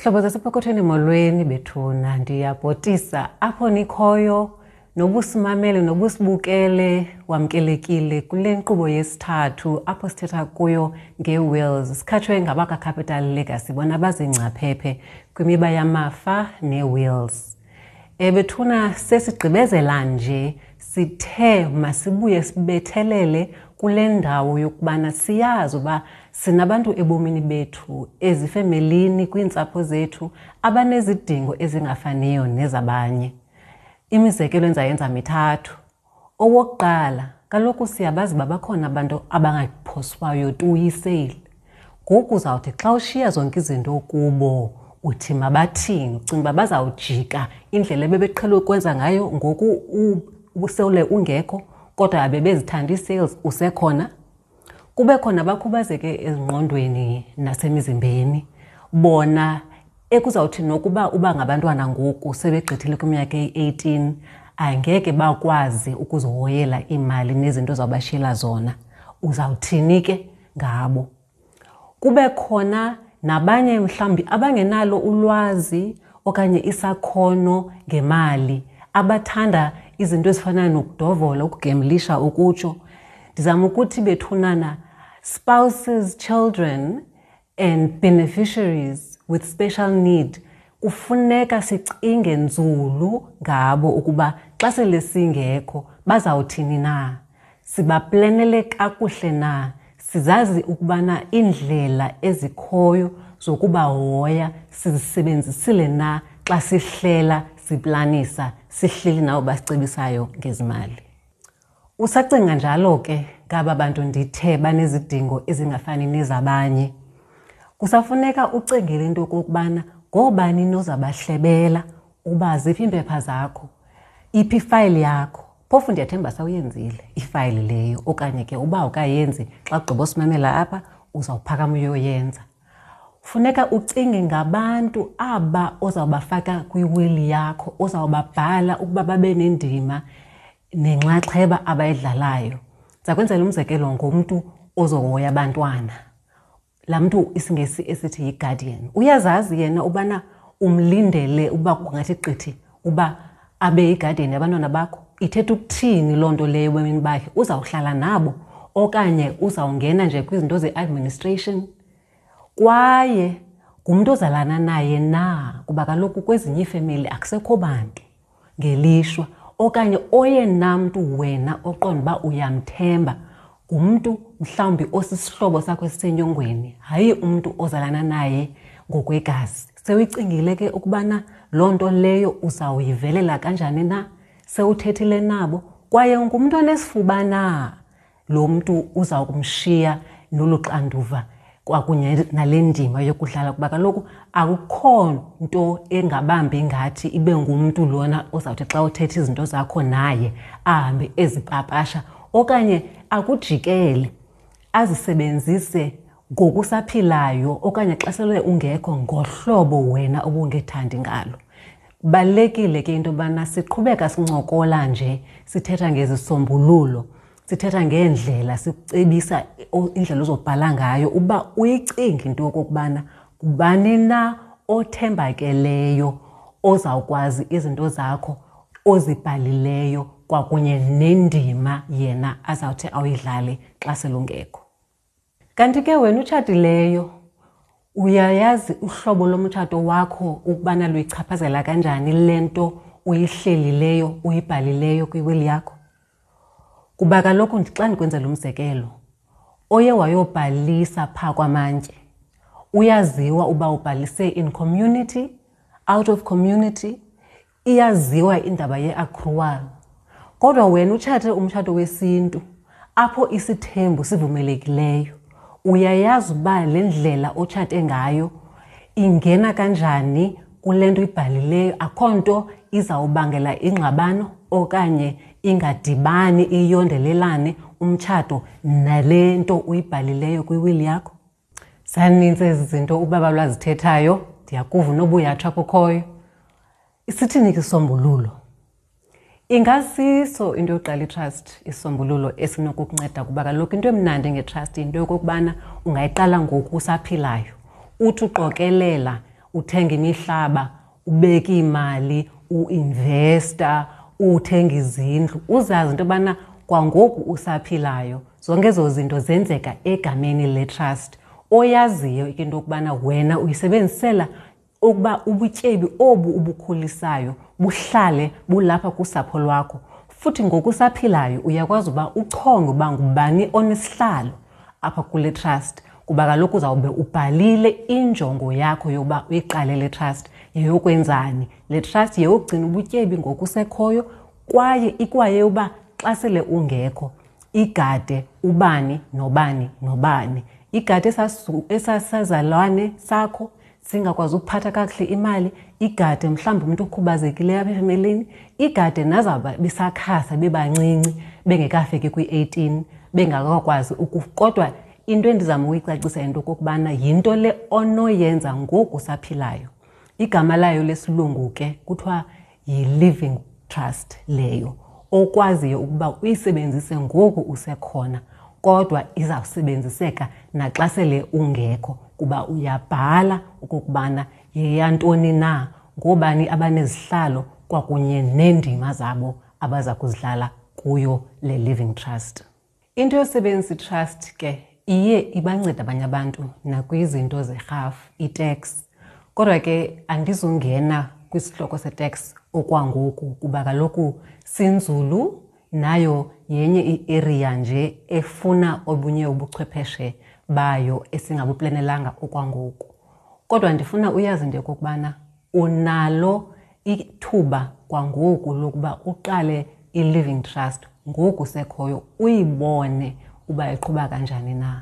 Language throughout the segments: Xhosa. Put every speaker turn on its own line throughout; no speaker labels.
Zihlobo zasepokothweni, molweni bethuna. Ndiyabhotisa apho nikhoyo, nobusimamele nobusibukele, wamkelekile kule nkqubo yesithathu apho sithetha kuyo ngee-wills. Sikhatshwe ngabakaCapital Legacy, bona bazingcaphephe kwimiba yamafa nee-wills. Bethuna, sesigqibezela nje, sithe masibuye sibethelele kule ndawo yokubana siyazi uba sinabantu ebomini bethu, ezifemelini, kwiintsapho zethu, abanezidingo ezingafaniyo nezabanye. Imizekelo endizayenza mithathu. Owokuqala, kaloku siyabazi uba bakhona abantu abangaphoswayo tu yiseyile. Ngoku uzawuthi xa ushiya zonke izinto kubo, uthi mabathini? Ucinga uba bazawujika indlela ebebeqhele ukwenza ngayo ngoku usele ungekho, kodwa abebezithanda ii-sales usekhona? Kube khona abakhubazeke ezingqondweni nasemizimbeni, bona ekuzawuthi nokuba uba ngabantwana ngoku sebegqithile kwiminyaka eyi-18, angeke bakwazi ukuzihoyela iimali nezinto ozawubashiyela zona. Uzawuthini ke ngabo? Kube khona nabanye mhlawumbi abangenalo ulwazi okanye isakhono ngemali, abathanda izinto ezifana nokudovola, ukugemlisha, ukutsho. Ndizama ukuthi bethunana, spouses, children and beneficiaries with special need, kufuneka sicinge nzulu ngabo ukuba xa sele singekho bazawuthini na, sibaplenele kakuhle na, sizazi ukubana iindlela ezikhoyo zokubahoya sizisebenzisile na xa sihlela, siplanisa, sihleli nabo basicebisayo ngezimali. Usacinga njalo ke ngaba bantu ndithe banezidingo ezingafani nezabanye, kusafuneka ucingele into yokokubana ngoobani nozabahlebela uba ziphi iimpepha zakho, iphi ifayili yakho. Phofu ndiyathemba sawuyenzile ifayili leyo, okanye ke uba awukayenzi, xa ugqiba usimamela apha uzawuphakama uyoyenza. Funeka ucinge ngabantu aba ozawubafaka kwiwili yakho, ozawubabhala ukuba babe nendima nenxaxheba abayidlalayo. Ndiza kwenzela umzekelo ngomntu ozohoya abantwana, laa mntu isiNgesi esithi yi-guardian. Uyazazi yena ubana umlindele uba kungathi qithi uba abe yi-guardian yabantwana bakho? Ithetha ukuthini loo nto leyo ebomini bakhe? Uzawuhlala nabo okanye uzawungena nje kwizinto ze-administration? Kwaye ngumntu ozalana naye na? Kuba kaloku kwezinye iifemeli akusekho bantu ngelishwa, okanye oyena mntu wena oqonda uba uyamthemba ngumntu mhlawumbi osisihlobo sakho esisenyongweni, hayi umntu ozalana naye ngokwegazi. Sewuyicingile ke ukubana loo nto leyo uzawuyivelela kanjani na? Sewuthethile nabo? Kwaye ngumntu onesifuba na lo mntu uza kumshiya nolu xanduva kwakunye nale ndima yokudlala? Kuba kaloku akukho nto engabambi ngathi ibe ngumntu lona ozawuthi xa uthetha izinto zakho naye ahambe ezipapasha okanye akujikele azisebenzise ngokusaphilayo okanye xa sele ungekho ngohlobo wena obungethandi ngalo. Kubalulekile ke into yobana siqhubeka sincokola nje, sithetha ngezisombululo, sithetha ngeendlela, sikucebisa indlela ozobhala ngayo uba uyicinge into yokokubana ngubani na othembakeleyo ozawukwazi izinto zakho ozibhalileyo kwakunye nendima yena azawuthi awuyidlale xa selungekho. Kanti ke wena utshatileyo, uyayazi uhlobo lomtshato wakho ukubana luyichaphazela kanjani le nto uyihlelileyo, uyibhalileyo kwiwili yakho? Kuba kaloku xa ndikwenzela umzekelo, oye wayobhalisa phaa kwamantye uyaziwa uba ubhalise in community, out of community, iyaziwa indaba ye-accrual. Kodwa wena utshate umtshato wesintu apho isithembu sivumelekileyo, uyayazi uba le ndlela otshate ngayo ingena kanjani kule nto ibhalileyo? Akho nto izawubangela ingxabano okanye ingadibani iyondelelane umtshato nale nto uyibhalileyo kwiwili yakho? Zaninzi ezi zinto ubaba lwazithethayo, ndiyakuva unobuyatsha kukhoyo. Isithini ke isombululo? Ingasiso into yokuqala itrust isombululo esinokukunceda, kuba kaloku into emnandi ngetrust yinto yokokubana ungayiqala ngoku usaphilayo, uthi uqokelela uthenga imihlaba, ubeka iimali, uinvesta, uthenga izindlu, uzazi into yobana kwangoku usaphilayo zonke ezo zinto zenzeka egameni le-trust oyaziyo into yokubana wena uyisebenzisela ukuba ubutyebi obu ubukhulisayo buhlale bulapha kusapho lwakho. Futhi ngokusaphilayo uyakwazi uba uchonge uba ngubani onesihlalo apha kule trust, kuba kaloku uzawube ubhalile injongo yakho yokuba uyiqale le trust yeyokwenzani. Le trust yeyokugcina ubutyebi ngokusekhoyo kwaye ikwaye uba xa sele ungekho igade ubani nobani nobani, igade esasazalwane sakho singakwazi ukuphatha kakuhle imali, igade mhlawumbi umntu okhubazekileyo apha efemelini, igade nazawuba besakhasa bebancinci bengekafiki kwi-18 bengakakwazi. Kodwa into endizama ukuyicacisa yinto okokubana yinto le onoyenza ngoku usaphilayo. Igama layo lesilungu ke kuthiwa yi-living trust leyo, okwaziyo ukuba uyisebenzise ngoku usekhona, kodwa izawusebenziseka naxa sele ungekho, kuba uyabhala okokubana yeyantoni na, ngoobani abanezihlalo kwakunye neendima zabo abaza kuzidlala kuyo le living trust. Into yosebenzisa i-trust ke iye ibanceda abanye abantu nakwizinto zerhafu, i-tax. Kodwa ke andizungena kwisihloko se-tax okwangoku, kuba kaloku sinzulu, nayo yenye i-area nje efuna obunye ubuchwepheshe bayo esingabuplanelanga okwangoku. Kodwa ndifuna uyazi into yokokubana unalo ithuba kwangoku lokuba uqale i-living trust ngoku sekhoyo, uyibone uba iqhuba kanjani na.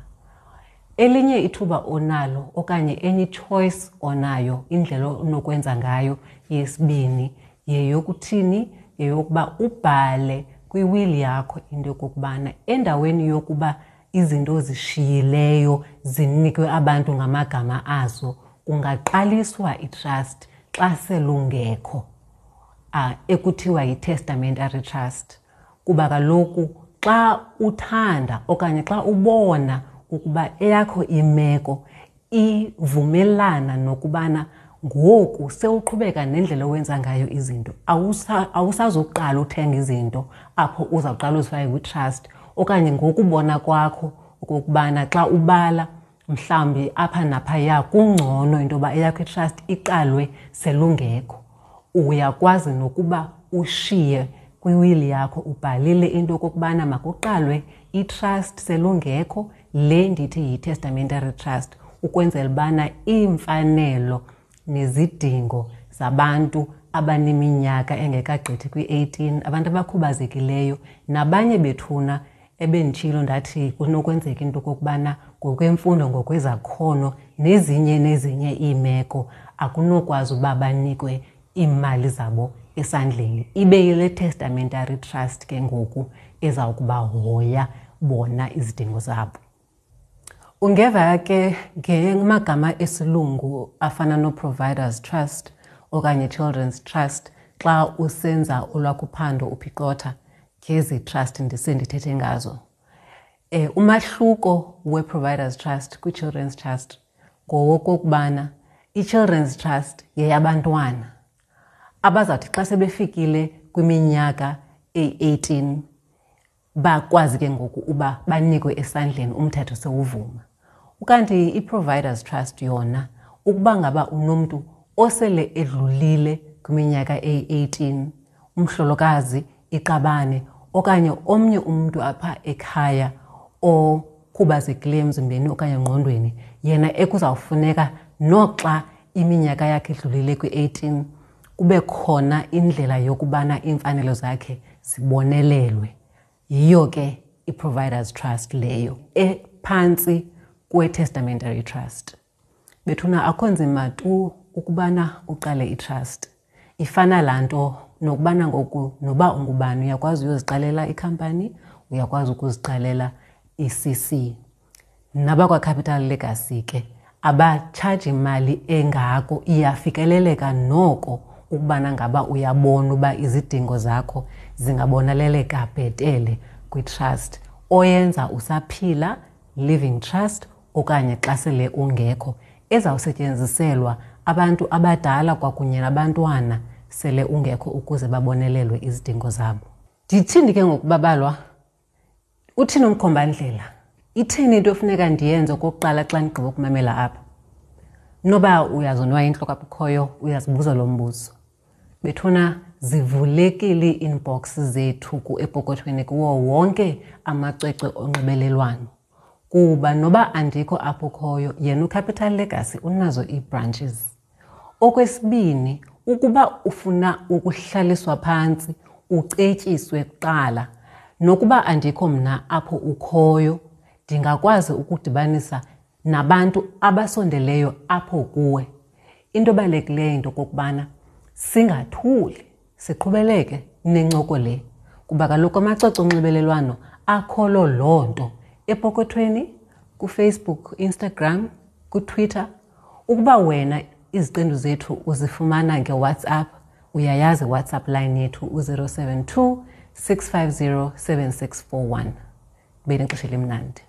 Elinye ithuba onalo okanye enye choice onayo, indlela onokwenza ngayo yesibini, yeyokuthini? Yeyokuba ubhale kwiwili yakho into yokokubana endaweni yokuba izinto ozishiyileyo zinikwe abantu ngamagama azo, kungaqaliswa i-trust xa selungekho, ekuthiwa yi-testamentary trust. Kuba kaloku xa uthanda okanye xa ubona ukuba eyakho imeko ivumelana nokubana ngoku sewuqhubeka nendlela owenza ngayo izinto, awusazoqala uthenga izinto apho uzawuqala uzifake kwi-trust, okanye ngokubona kwakho okokubana xa ubala mhlawumbi apha naphaya kungcono into yoba eyakho i-trust iqalwe selungekho, uyakwazi nokuba ushiye kwiwili yakho ubhalile into okokubana makuqalwe i-trust selungekho, le ndithi yi-testamentary trust, ukwenzela ubana iimfanelo nezidingo zabantu abaneminyaka engekagqithi kwi-18, abantu abakhubazekileyo nabanye bethuna ebenditshilo ndathi kunokwenzeka into okokubana ngokwemfundo, ngokwezakhono nezinye nezinye iimeko akunokwazi uba banikwe iimali zabo esandleni. Ibe yile testamentary trust ke ngoku ezawukubahoya bona izidingo zabo. Ungeva ke ngamagama esilungu afana no-Providers Trust okanye Children's Trust xa usenza olwakho uphando uphicotha ngezi trust ndisendithethe ngazo. Umahluko we-Providers Trust kwi-Children's Trust ngowokokubana i-Children's Trust yeyabantwana abazawuthi xa sebefikile kwiminyaka eyi-18 bakwazi ke ngoku uba banikwe esandleni umthetho sewuvuma. Ukanti i-Providers Trust yona, ukuba ngaba unomntu osele edlulile kwiminyaka eyi-18, umhlolokazi, iqabane okanye omnye umntu apha ekhaya okhubazekileyo emzimbeni okanye engqondweni, yena ekuzawufuneka noxa iminyaka yakhe idlulile kwi-18 kube khona indlela yokubana iimfanelo zakhe zibonelelwe. Yiyo ke i-Providers Trust leyo ephantsi kwe-Testamentary Trust. Bethuna, akho nzima tu ukubana uqale i-trust. Ifana laa nto nokubana ngoku noba ungubani uyakwazi uyoziqalela ikhampani, uyakwazi ukuziqalela i-CC. Nabakwa-Capital Legacy ke abatshaji imali engako, iyafikeleleka noko ukubana ngaba uyabona uba izidingo zakho zingaboneleleka bhetele kwi-trust oyenza usaphila, living trust, okanye xa sele ungekho, ezawusetyenziselwa abantu abadala kwakunye nabantwana sele ungekho ukuze babonelelwe izidingo zabo. Ndithini ke ngokubabalwa? Uthini umkhombandlela? Ithini into efuneka ndiyenze okokuqala xa ndigqiba ukumamela apha? Noba uyazonwaya intloko apho ukhoyo, uyazibuza lo mbuzo. Bethuna zivulekile ii-inbox zethu epokothweni kuwo wonke amacwecwe onxibelelwano. Kuba noba andikho apho ukhoyo, yena uCapital Legacy unazo ii-branches. Okwesibini, ukuba ufuna ukuhlaliswa phantsi ucetyiswe kuqala, nokuba andikho mna apho ukhoyo, ndingakwazi ukudibanisa nabantu abasondeleyo apho kuwe. Into ebalulekileyo into okokubana singathuli, siqhubeleke nencoko le, kuba kaloku amacwecwe onxibelelwano akholo loo nto epokothweni, kuFacebook, Instagram, kuTwitter. Ukuba wena iziqendu zethu uzifumana ngeWhatsApp, uyayazi iWhatsApp line yethu u-072 650 7641. Benexesha elimnandi.